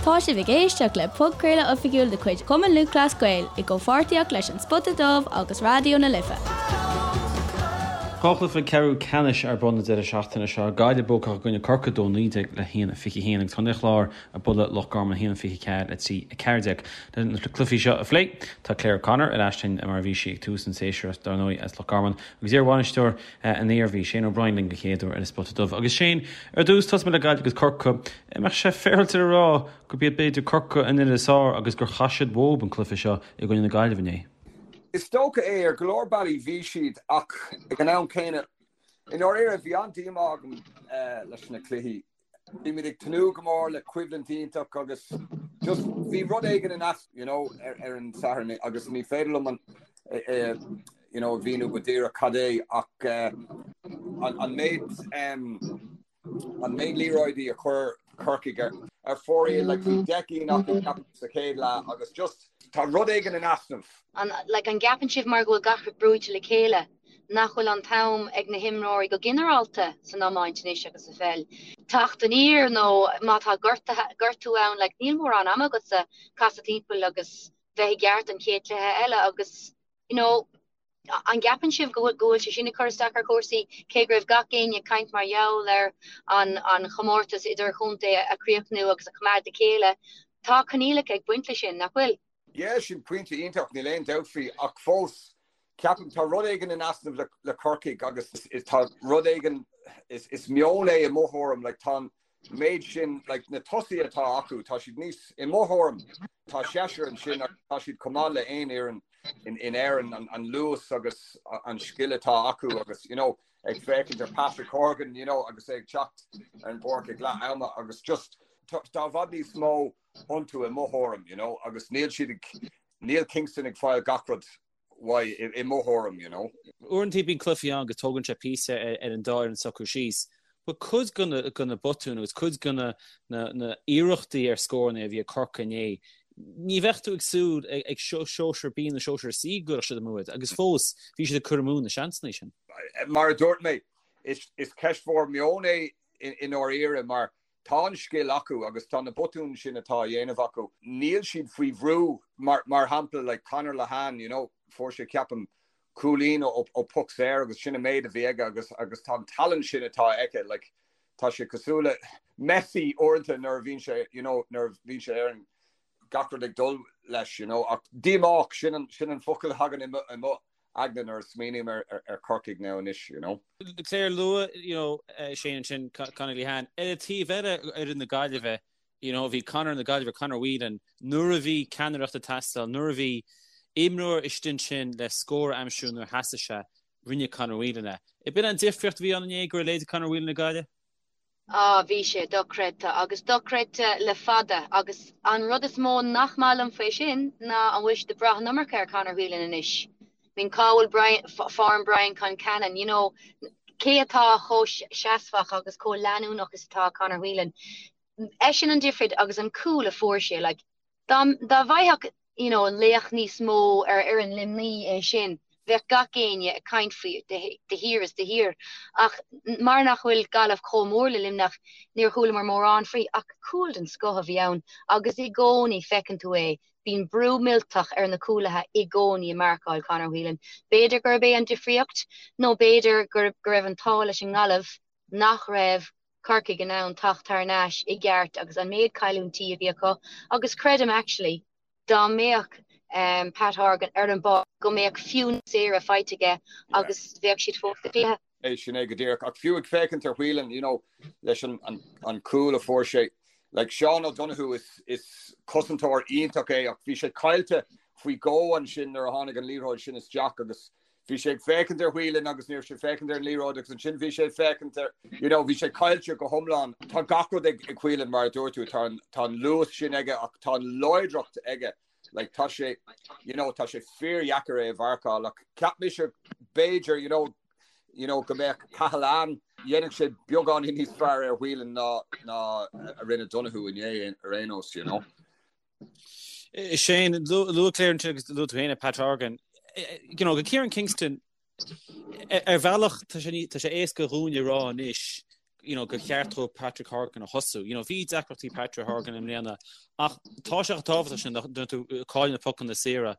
Tá sibh ag éisteacht le podchraoladh oifigiúil de chuid Chumann Lúthchleas Gael i gcomhpháirtíocht leis An Spota Dubh agus Raidió na Life. Dhá chluiche ceathrú ceannais ar bun an deireadh seachtaine seo, Gaillimh buacach i gcoinne Corcaigh 2-19 le 1-21 agus Contae an Chláir ag bualadh Loch Garman 1-24 le 3-14. Le na cluichí seo a phlé, tá Claire O'Connor ar ais linn mar a bhí sí ag tús an tséasúir, dar ndóigh as Loch Garman, agus iar-bhainisteoir an Iarmhí, Shane O'Brien linn den chéad uair ar an Spota Dubh. Agus Shane, ar dtús, tosóidh muid le Gaillimh agus Corcaigh. An mbeadh sé féaráilte a rá gurb iad b'fhéidir Corcaigh an fhoireann is fearr agus gur chaith siad uathu an cluiche seo i gcoinne na Gaillimhe inné? Is dócha é, ar go leor bealaí bhí siad ach ag an am céanna, i ndáiríre bhí an-díomá agam leis na cluichí. Bhí muid ag tnúth go mór le coimhlint iontach agus just bhí rud éigin in easnamh you know ar an Satharn agus ní féidir liom an you know a mhíniú go díreach cad é ach an méid an méid liathróidí a chuir Corcaigh ar ar fóraoil like bhí 10 gcinn acu ceapaim sa chéad leath agus just tá rud éigin in easnamh. An like an gceapann sibh mar go bhfuil gach rud brúite le chéile nach bhfuil an t-am ag na himreoirí go ginearálta san iomáint anois agus sa pheil teacht aniar nó má tá gortú ann like níl mórán ama agatsa casadh timpeall agus bheith i gceart don chéad chluiche eile agus you know an gceapann sibh go bhfuil go bhfuil sé sin ag cur isteach ar chúrsaí cé go raibh gach éinne ag caint mar gheall ar an an chomórtas idirchontae a chríochnú agus a choimeád le chéile tá coinníollacha ag baint leis sin nach bhfuil? Yeah, sin pointe iontach, níl aon dabht faoi, ach fós, ceapaim, tá rud éigin in easnamh le, le Corcaigh agus is, tá rud éigin, is, is meon é i mo thuairim, like, tá an méid sin, like, na tosaithe atá acu, tá siad níos, i mo thuairim, tá seisear ansin agus tá siad chomh maith le aon fhoireann in, in Éirinn, an, an luas agus an scil atá acu agus, you know, ag féachaint ar Patrick Horgan, you know, agus é ag teacht ar an bpáirc ag leath ama agus just, tá, tá i bhfad níos mó iontu i mo thuairim, you know, agus níl siad ag, níl Kingston ag fáil gach rud uaidh i mo thuairim, you know. Uaireanta bíonn cluichí ann go dtógann sé píosa ar an dá fhoireann socrú síos. But cuid de na botúin agus cuid de na iarrachtaí ar scóranna a bhí ag Corcaigh inné, ní bheadh tú ag súil ag sóisear B nó sóisear C go gcuirfeadh siad amú iad agus fós bhí siad ag cur amú na seansanna sin. Mar a dúirt mé, is ceist mhór meoin é i ndáiríre mar Tá an scil acu agus tá na botúin sin atá á dhéanamh acu, níl siad faoi bhrú. Mar mar shampla like Conor Lehane, you know, fuair sé ceapaim cúilín ó ó poc saor agus sin an méid a bhí aige agus agus tá an tallann sin atá aige like tá sé cosúil le Messi uaireanta nuair a bhíonn sé you know nuair a bhíonn sé ar an gach rud ag dul leis you know ach díomách sin an sin an focal a thagann i mo i mo aigne nuair a smaoiním ar ar Corcaigh now anois, you know. Claire luaigh, you know, Shane ansin, Conor Lehane. Ar an taobh eile, fhoireann na Gaillimhe, you know, bhí Conor na Gaillimhe, Conor Whelan, nuair a bhí ceannaireacht ag teastáil, nuair a bhí imreoir istigh ansin le scór a aimsiú nuair a theastaigh sé, rinne Conor Whelan é. B'in an difríocht a bhí ann inné go raibh leithéidí Conor Whelan ag Gaillimh? Ah, bhí sé dochreidte, agus dochreidte le fada, agus an rud is mó nach maith liom faoi sin ná an bhfuil siad ag brath an iomarca ar Conor Whelan anois. I mean, cá bhfuil Brian, form Brian Concannon, you know, cé atá chomh seasmhach agus chomh leanúnach is atá Conor Whelan? Eisean an difríocht agus an cúl a fuair sé, like, Dá bhfaigheadh you know laoch níos mó ar fhoireann Luimnigh é sin, bheadh gach éinne ag caint faoi de shíor is de shíor. Ach mar nach bhfuil Gaillimh chomh mór le Luimneach, níor chualamar mórán faoi. Ach cúl den scoth a bhí ann agus i gcónaí feiceann tú é, bíonn brú millteach ar na cúlaithe i gcónaí ag marcáil Conor Whelan. B'fhéidir gurb é an difríocht nó b'fhéidir go raibh an t-ádh leis an nGaillimh nach raibh Corcaigh in ann teacht thar n-ais i gceart agus an méid cailliúintí a bhí acu agus creidim actually dá mbeadh Pat Horgan ar an bpáirc go mbeadh fiú níos saoire faighte aige agus bheadh siad fós sa chluiche. É sin é go díreach. Ach fiú ag féachaint ar Whelan, you know, leis an, an, an cúl a fuair sé, like Sean O'Donoghue is, is cosantóir iontach é ach bhí sé caillte faoi dhó ansin nuair a tháinig an liathróid sin isteach agus Bhí sé ag féachaint ar Whelan agus ní raibh sé ag féachaint ar an liathróid agus ansin bhí sé ag féachaint ar, you know, bhí sé caillte go hiomlán. Tá gach rud ag ag Whelan mar a dúirt tú, tá an tá an luas sin aige ach tá an láidreacht aige. Like tá sé, you know, tá sé fíordheacair é a mharcáil ach cheap mise b'fhéidir, you know, you know, go mbeadh Cahalane, dhéanfadh sé beagáinín níos fearr ar Whelan ná ná a rinne Donoghue inné ar aon nós, you know. Shane, luaigh Claire ansin agus luaigh tú féin é Pat Horgan. You know, go Kieran Kingston, ar bhealach tá sé tá sé éasca dhúinn a rá anois. you know, gur cheart dó Patrick Horgan a thosú. You know, bhí deacrachtaí Patrick Horgan i mbliana ach tá sé chomh tábhachtach sin nuair tú ag cailleadh na pocanna saora.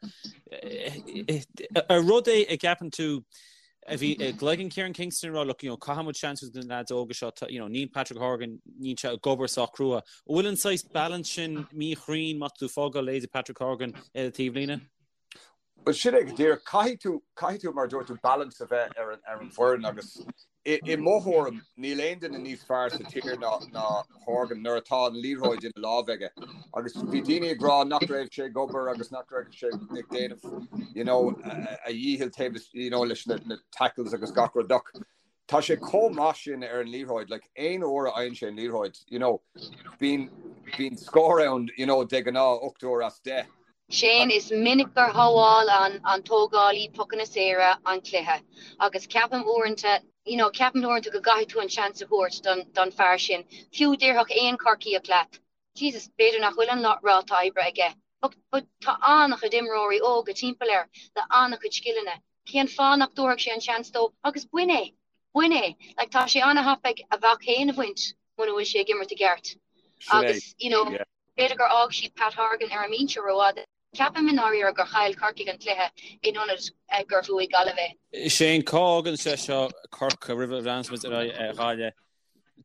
Ar rud é a gceapann tú a bhí i gcloigeann Kieran Kingston ag rá look, you know, caithfidh muid seans a thabhairt do na leaids óga seo, you know, níl Patrick Horgan, níl sé ag obair sách crua. An bhfuil an saghas balance sin míchruinn má tá tú ag fágáil leithéidí Patrick Horgan ar an taobhlíne? Bhuel, sin é go díreach. Caithfidh tú, caithfidh tú, mar a dúirt tú, balance a bheith ar an, ar an bhfoireann agus i, i mo thuairim, níl aon duine níos fearr sa tír ná, ná Horgan nuair atá an liathróid ina lámh aige. Agus bhí daoine ag rá nach raibh sé ag obair agus nach raibh sé ag déanamh, you know, a dhícheall taobh, you know, leis na, na tackles agus gach rud ach tá sé chomh maith sin ar an liathróid, like, aon uair a fhaigheann sé an liathróid, you know, bíonn, bíonn scór ann, you know, de ghnáth, 8 uair as 10. Shane, Is minic gur shábháil an tógálaí pocanna saora an cluiche agus ceapaim uaireanta, you know, ceapaim uaireanta go gcaithfidh tú an seans a thabhairt don, don fear sin. Fiú déarfadh aon Chorcaíoch leat, Jesus, b'fhéidir nach bhfuil an ráta oibre aige, but, but tá an-chuid imreoirí óga timpeall air le an-chuid scileanna. Cén fáth nach dtabharfadh sé an seans dó agus bain é! Bain é! Like, tá sé an-thapaidh a mhac féin a bhaint muna bhfuil sé ag imirt i gceart. Agus, you know, B'fhéidir gur fhág siad Pat Horgan ar an mbinse rófhada. Ceapaim i ndáiríre gur chaill Corcaigh an cluiche in ionad gur bhuaigh Gaillimh é. Shane, cá fhágann sé seo Corcaigh roimh a bhreathnaíos muid ar aghaidh ar Ghaillimh?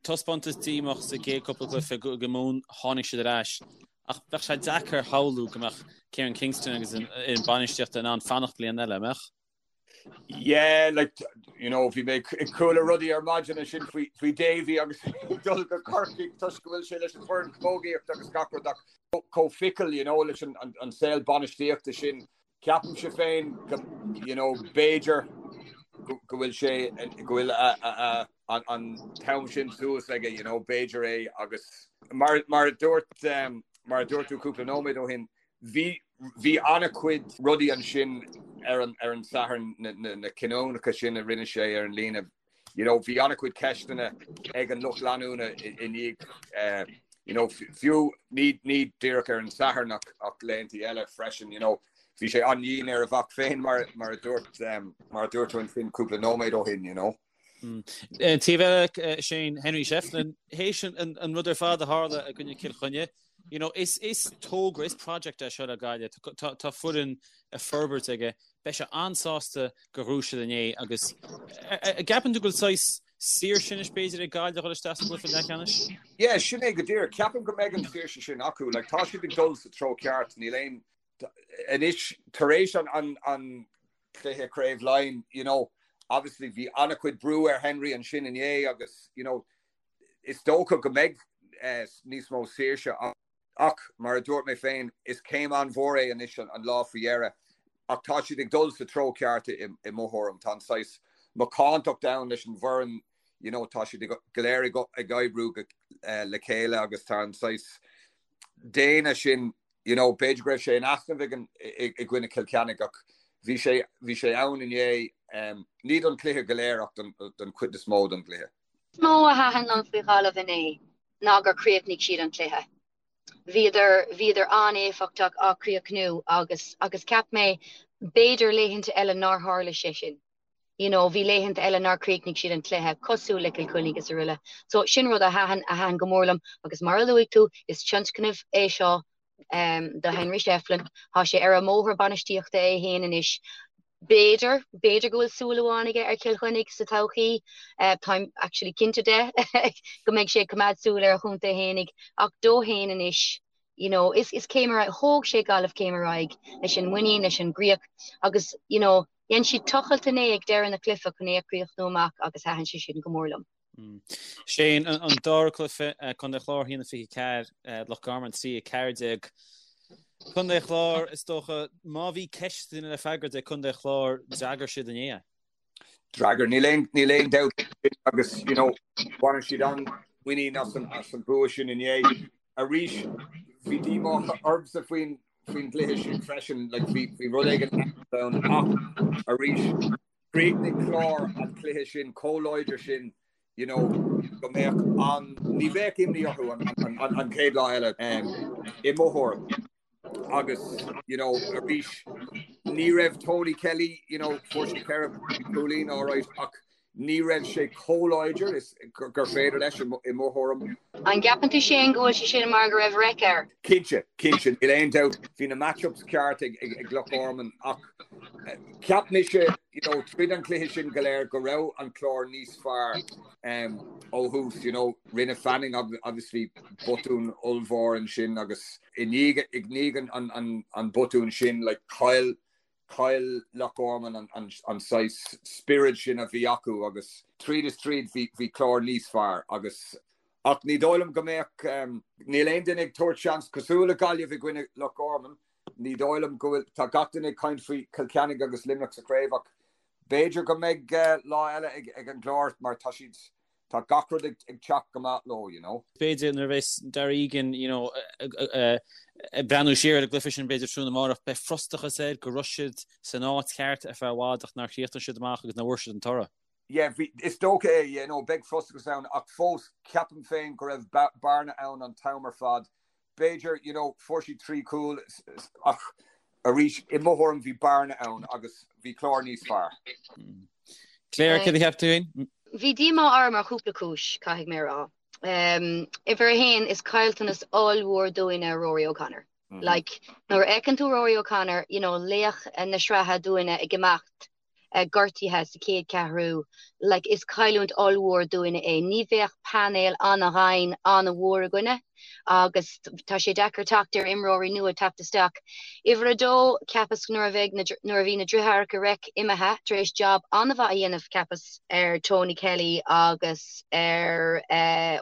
Taispeántas díomách sa gcéad cúpla cluiche i Mumhan, tháinig siad ar ais. Ach bheadh sé deacair a shamhlú go mbeadh Kieran Kingston agus an fhoireann bainistíochta in ann fanacht bliain eile, an mbeadh? Yeah, like, you know, bhí mé ag chuala rudaí ar maidin ansin faoi, faoi Davy agus dul go Corcaigh toisc go bhfuil sé leis an bhfoireann camógaíochta agus gach rud ach chomh fickle, you know, leis an, an, an saol bainistíochta sin. Ceapaimse féin go, you know, b'fhéidir go, go bhfuil sé, go bhfuil a, a, a, an, an t-am sin suas aige, you know, b'fhéidir é agus mar, mar a dúirt, um, mar a dúirt tú cúpla nóiméad ó shin, Bhí, bhí an-chuid rudaí ansin ar an, ar an Satharn, na, na, na cinniúnacha sin a rinne sé ar an líne. You know, bhí an-chuid ceisteanna ag an lucht leanúna i, i ndiaidh, eh, you know, fiú ní, ní díreach ar an Satharn ach, ach laethanta eile freisin, you know. Bhí sé an-dhian ar a mhac féin mar, mar a dúirt, um, mar a dúirt tú ansin cúpla nóiméad ó shin, you know. Taobh eile, Shane, Henry Shefflin, théis an rud ar fad a tharla i gcoinne Cill Chainnigh, you know, is is togra, is project é seo le Gaillimh. Tá tá foireann ag forbairt aige. Beidh sé an-sásta gur bhuaigh siad inné agus an gceapann tú go bhfuil saghas saoirse anois b'fhéidir ag Gaillimh a dhul isteach sa gcluiche leathcheannais? Yeah, sin é go díreach. Ceapaim go mbeidh an saoirse sin acu. Like, tá siad ag dul sa treo ceart. Níl aon Anois, tar éis an chluiche Craobh Laighean, you know, obviously bhí an-chuid brú ar Henry ansin inné agus, you know, is dócha go mbeidh níos mó saoirse ach, mar a dúirt mé féin, is céim an-mhór é anois an lá faoi dheireadh ach tá siad ag dul sa treo ceart i mo thuairim. Tá an saghas macántacht ann leis an bhfoireann, you know, tá siad go léir ag oibriú le chéile agus tá an saghas déine sin you know, b'fhéidir go raibh sé in easnamh ag an, i, i gcoinne Chill Chainnigh ach bhí sé, bhí sé ann inné, um, ní don chluiche go léir ach don, don chuid is mó don gcluiche. Is mó a thaitin liom faoi Ghaillimh inné ná gur chríochnaigh siad an cluiche. Bhíodar, bhíodar an-éifeachtach á chríochnú agus, agus cheap mé b'fhéidir laethanta eile nár tharla sé sin. You know, bhí laethanta eile nár chríochnaigh siad an cluiche, cosúil le Cill Chainnigh is araile. So, sin rud a thaitin, a thaitin go mór liom agus mar a luaigh tú, is tionscnamh é seo do Henry Shefflin. Tá sé ar an mbóthar bainistíochta é féin anois. B'fhéidir, b'fhéidir go bhfuil súil amháin aige ar Chill Chainnigh sa todhchaí. Táim actually cinnte de go mbeidh sé ag coimeád súil ar a chontae fhéinig ach dó féin anois, you know, is, is céim ar aghaidh, thóg sé Gaillimh céim ar aghaidh leis an muinín, leis an gcríoch agus, you know, Dhein siad tochailt inné ag deireadh na cluiche chun é a chríochnú amach agus thaitin sé sin go mór liom. Shane, an dara cluiche, Contae an Chláir 1-24, Loch Garman 3-14. Contae an Chláir, is dócha, má bhí ceisteanna le freagairt ag Contae an Chláir, d'fhreagair siad inné é. D'fhreagair, níl aon, níl aon dabht agus, you know, bhain siad an-mhuinín as an, as an bua sin inné. Arís, bhí díomá ormsa faoin faoin gcluiche sin freisin, like, bhí, bhí rud éigin ann ach arís, chríochnaigh Clár an cluiche sin chomh láidir sin, you know, go mbeadh an, ní bheadh imní orthu an, an, an, an chéad lá eile um, i mo thuairim. Agus, you know, arís, ní raibh Tony Kelly, you know, fuair sé 4 cúilín, all right, ach. Ní raibh sé chomh láidir is gur féidir leis, i mo thuairim. An gceapann tú Shane go bhfuil sé sin mar go raibh raic air? Cinnte, cinnte, níl aon dabht. Bhí na match-ups ceart ag Loch Garman ach cheap mise, you know, tríd an chluiche sin go léir go raibh an Clár níos fearr ó thús, you know. Rinne Fanning obviously botún ollmhór ansin agus i ndiaidh an botún sin, like, chaill Chaill Loch Garman an saghas spiorad sin a bhí acu agus tríd is tríd bhí Clár níos fearr agus ach ní dóigh liom go mbeadh, níl aon duine ag tabhairt seans cosúil le Gaillimh i gcoinne Loch Garman, ní dóigh liom go bhfuil, tá gach duine ag caint faoi Cill Chainnigh agus Luimneach sa chraobh ach b'fhéidir go mbeidh lá eile ag an gClár mar tá siad Tá gach rud ag teacht go maith leo, you know. B'fhéidir nuair a bheas Darragh Egan, you know, ag breathnú siar ar an gcluiche sin b'fhéidir tráthnóna amárach, beidh frustrachas air go raibh siad san áit cheart ar feadh i bhfad ach nár chríochnaigh siad amach agus nár bhfuair siad an toradh. Yeah, bhí, is dócha é, you know, beidh frustrachas ann ach fós ceapaim féin go raibh bearna ann an t-am ar fad B'fhéidir, you know, fuair siad 3 chúl ach arís, i mo thuairim, bhí bearna ann agus bhí Clár níos fearr. Claire, céard a cheap tú féin? Bhí díomá orm ar chúpla cúis, caithfidh mé a rá. Uimhir a haon, is caillteanas ollmhór dúinne Rory O'Connor. Like, nuair a fheiceann tú Rory O'Connor, you know, laoch na sraithe dúinne ag imeacht, gortaithe sa chéad cheathrú, like is cailliúint ollmhór dúinne é. Ní bheadh painéal an-ghann an-mhór againne agus tá sé deacair teacht ar imreoirí nua teacht isteach. Uimhir a dó, cheapas nuair a bheidh na, nuair a bhí na driotháireacha Reic imithe tar éis jab an-mhaith a dhéanamh cheapas ar Tony Kelly agus ar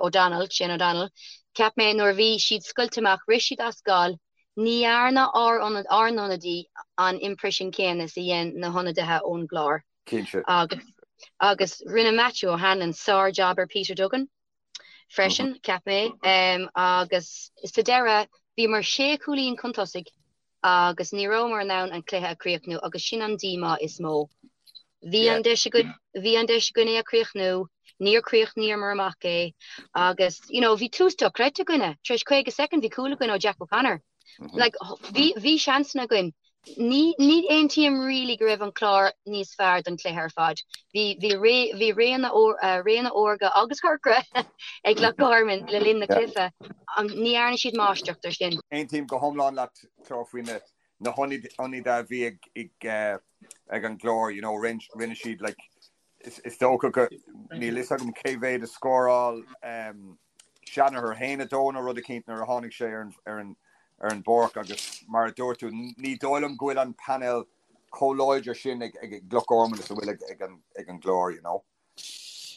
O'Donnell, Shane O'Donnell, cheap mé nuair a bhí siad scoilte amach, rith siad as gal, Ní dhearna ár n-ionadaí an imprisean céanna is a dhein na hionadaithe ón gClár. Cinnte. Agus agus rinne Matthew O'Hanlon sár-jab ar Peter Duggan freisin, cheap mé. Agus sa deireadh, bhíomar sé chúilín chun tosaigh agus ní rabhamar in ann an cluiche a chríochnú agus sin an díomá is mó. Bhí an deis againn, bhí an deis againn é a chríochnú, níor chríochnaíomar amach é agus you know bhí tús dochreidte againne, tar éis 50 soicind bhí cúl againn ó Jack O'Connor. Like bhí, bhí seansanna againn. Ní, ní aontaím really go raibh an Clár níos fearr don chluiche ar fad. Bhí, bhí ré, bhí réanna, réanna órga agus corcra ag Loch Garman le linn na cluiche. Ní dhearna siad máistreacht ar sin. Aontaím go hiomlán leat, Claire, faoi na, na hionadaithe a bhí ag, ag, ag an gClár, you know, rinne siad like, is dócha go, níl fhios agam cé mhéad a scóráil um, Shanagher, 1-2 nó rud eicínt nuair a tháinig sé ar an, ar an, ar an bpáirc agus mar a dúirt tú, ní dóigh liom go bhfuil an painéal chomh láidir sin ag, ag, ag Loch Garman is a bhfuil ag, ag an, ag an gClár, you know.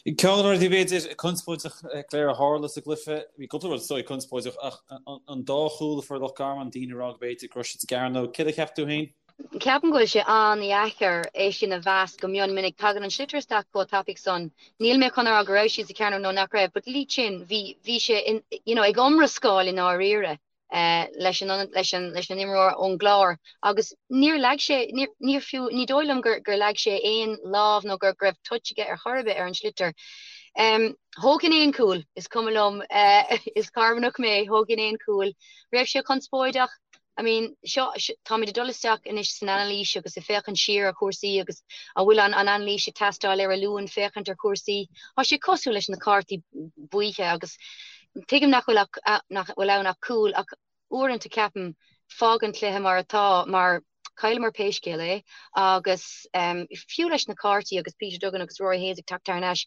Ceann de na rudaí b'fhéidir conspóideach Claire a tharla sa gcluiche, bhí cúpla rud is dóigh conspóideach ach an dá chúl a fuair Loch Garman, daoine ag rá go b'fhéidir go raibh siad sa gcearnóg. Céard a cheap tú féin? Ceapaim go bhfuil sé an-dheacair é sin a mheas go mion minic. Tagann an sliotar isteach chomh tapaidh san. Níl mé chun a rá go raibh siad sa chearnóg nó nach raibh, but Lee Chin, bhí, bhí sé in, you know, ag iomrascáil i ndáiríre. leis an leis an leis an imreoir ón gClár agus níor leag sé níor níor fiú ní dóigh liom gur gur leag sé aon lámh nó gur go raibh touch aige ar chor ar bith ar an sliotar. Um, thógfainn aon cúl, is cuma liom uh, is Carmanach mé, thógfainn aon cúl. Raibh sé conspóideach? I mean, seo, táimid ag dul isteach anois san anailís agus ag féachaint siar ar chúrsaí agus an bhfuil an, an anailís ag teastáil ar an Luan féachaint ar chúrsaí. Tá sé cosúil leis na cártaí buíche agus Tuigim nach bhfuil ach, nach bhfuil ann ach cúl, ach uaireanta ceapaim, fág an cluiche mar atá, mar chailleamar pé scéal é, agus fiú leis na cártaí agus Peter Duggan agus Rory Hayes ag teacht thar n-ais,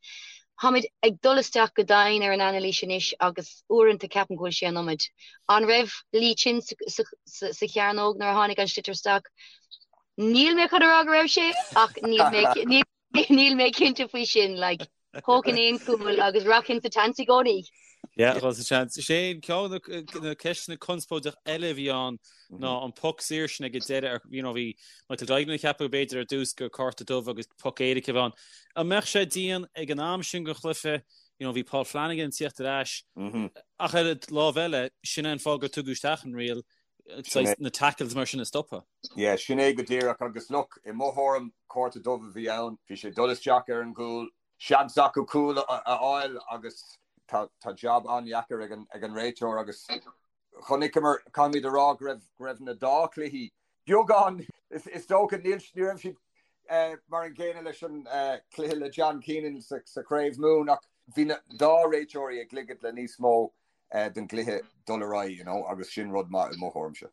táimid ag dul isteach go domhain ar an anailís anois agus uaireanta ceapaim go bhfuil sé an iomad. An raibh Lee Chin sa, sa, sa chearnóg nuair a tháinig an sliotar isteach? Níl mé chun a rá go raibh sé, ach níl mé, níl, Níl mé cinnte faoi sin, like, thógfainn aon chúl agus rachainn sa tseans i gcónaí. Yeah, dul sa tseans. Shane, ceann de na ceisteanna conspóideach eile a bhí ann ná an poc saor sin ag an deireadh, you know, bhí Michael Duignan ag ceapadh b'fhéidir ar dtús gur cárta dubh agus poc éirice a bhí ann. An mbeadh sé dian ag an am sin den chluiche, you know, bhí Paul Flanagan ag tíocht ar ais, ach ar an lámh eile, sin é an fáth gur tugadh isteach an riail, na tackles mar sin a stopadh. Yeah, sin é go díreach agus look, i mo thuairim, cárta dubh a bhí ann, bhí sé ag dul isteach ar an gcúl, seans acu cúl a fháil agus tá tá jab an-dheacair ag an ag an réiteoir agus chonaiceamar, caithfimid a rá go raibh go raibh na dá chluichí beagán, is is dócha, níl ní raibh siad. mar an gcéanna leis an cluiche le John Keenan sa Chraobh Mumhan ach bhí na dá réiteoirí ag ligint le níos mó den gcluiche dul ar aghaidh, you know, agus sin rud maith i mo thuairimse.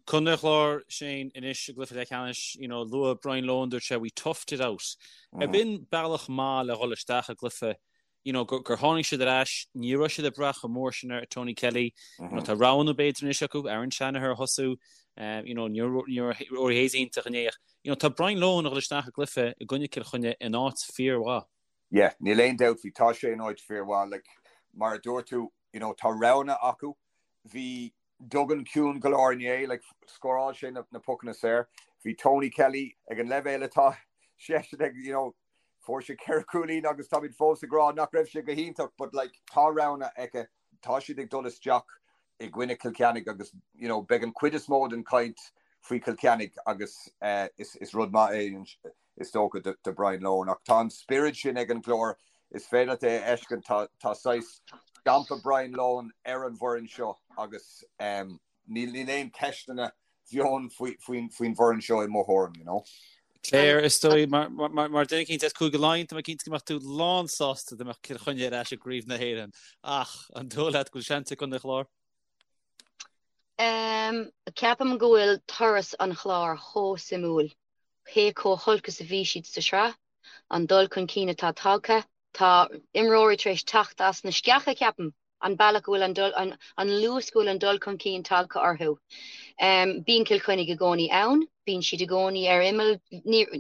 Contae an Chláir, Shane, anois i gcluiche leathcheannais, you know, luaigh Brian Lohan, dúirt sé, we toughed it out. Ab in bealach maith le dhul isteach i gcluiche, you know, gur tháinig siad ar ais, ní raibh siad ag brath chomh mór sin ar Tony Kelly, you know, tá roghanna b'fhéidir anois acu, Aaron Shanagher a thosú, you know, ní raibh Rory Hayes iontach inné ach, you know, tá Brian Lohan ag dhul isteach i gcluiche i gcoinne Cill Chainnigh in áit fíormhaith. Yeah, níl aon dabht faoi, tá sé in áit fíormhaith, like, mar a dúirt tú, you know, tá roghanna acu, bhí Duggan ciúin go leor inné, like, scóráil sé na, na pocanna saor, bhí Tony Kelly ag an leibhéal atá seisean ag, you know, fuair sé ceithre chúilín agus táimid fós ag rá nach raibh sé go hiontach, but like, tá roghanna aige, tá siad ag dul isteach i gcoinne Cill Chainnigh agus, you know, beidh an chuid is mó den chaint faoi Chill Chainnigh agus eh, is, is rud maith é is dócha, do Brian Lohan. Ach tá an spiorad sin ag an gClár, is féidir leat é a fheiscint, tá tá saghas stampa Brian Lohan ar an bhfoireann seo agus níl níl aon cheisteanna bheann faoi faoin faoin bhfoireann seo i mo thuairim, you know. Claire, is dóigh, mar mar mar duine eicínt as Cúige Laighean, tá mé cinnte go mbeadh tú lán sásta dá mbeadh Cill Chainnigh ar ais i gCraobh na hÉireann. Ach an dóigh leat go bhfuil seans ag Contae an Chláir? Ceapaim go bhfuil turas an Chláir chomh suimiúil. Cé chomh holc is a bhí siad sa sraith, an dul chun cinn atá tagtha, tá imreoirí tar éis teacht as na sceacha, ceapaim, an bealach go bhfuil an dul, an luas go bhfuil an dul chun cinn tagtha orthu. Bíonn Cill Chainnigh i gcónaí ann, bíonn siad i gcónaí ar imeall,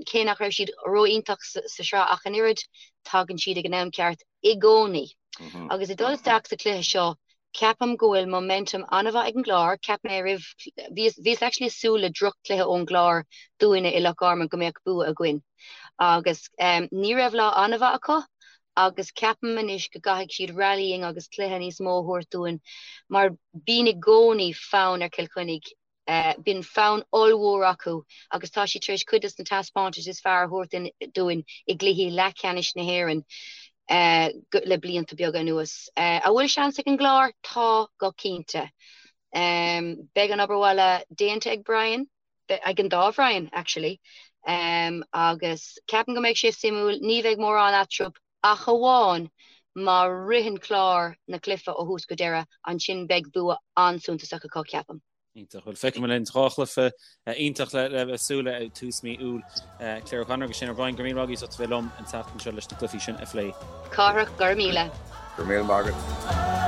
cé nach raibh siad ró-iontach sa sraith ach an oiread, tagann siad ag an am ceart i gcónaí. Agus ag dul isteach sa chluiche seo, Ceapaim go bhfuil momentum an-mhaith ag an gClár. Cheap mé roimh, bhíos, bhíos actually ag súil le droch-chluiche ón gClár dúinne i Loch Garman go mbeadh bua againn. Agus ní raibh lá an-mhaith acu agus ceapaim anois go gcaithfidh siad rallying agus cluiche níos mó a thabhairt dúinn mar bíonn i gcónaí fonn ar Chill Chainnigh Bíonn fonn ollmhór acu agus tá siad tar éis cuid de na taispeántais is fearr a thabhairt dúinn i gcluichí leathcheannais na hÉireann le blianta beaga anuas. An bhfuil seans ag an gClár? Tá, go cinnte. Beidh an obair bhaile déanta ag Brian, ag an dá Bhrian, actually, agus ceapaim go mbeidh sé suimiúil. Ní bheidh mórán eatarthu Ach amháin má ritheann Clár na cluiche ó thús go deireadh, ansin beidh bua an-suntasach acu, ceapaim. Iontach. Bhuel, feicfidh muid linn. Dhá chluiche iontach le bheith ag súil le ag tús mí Iúil. Claire O'Connor agus Shane O'Brien, go raibh míle maith agaibh as ucht a bheith liom an tseachtain seo leis na cluichí sin a phlé. Cárthach, go raibh míle. Go raibh míle maith agat.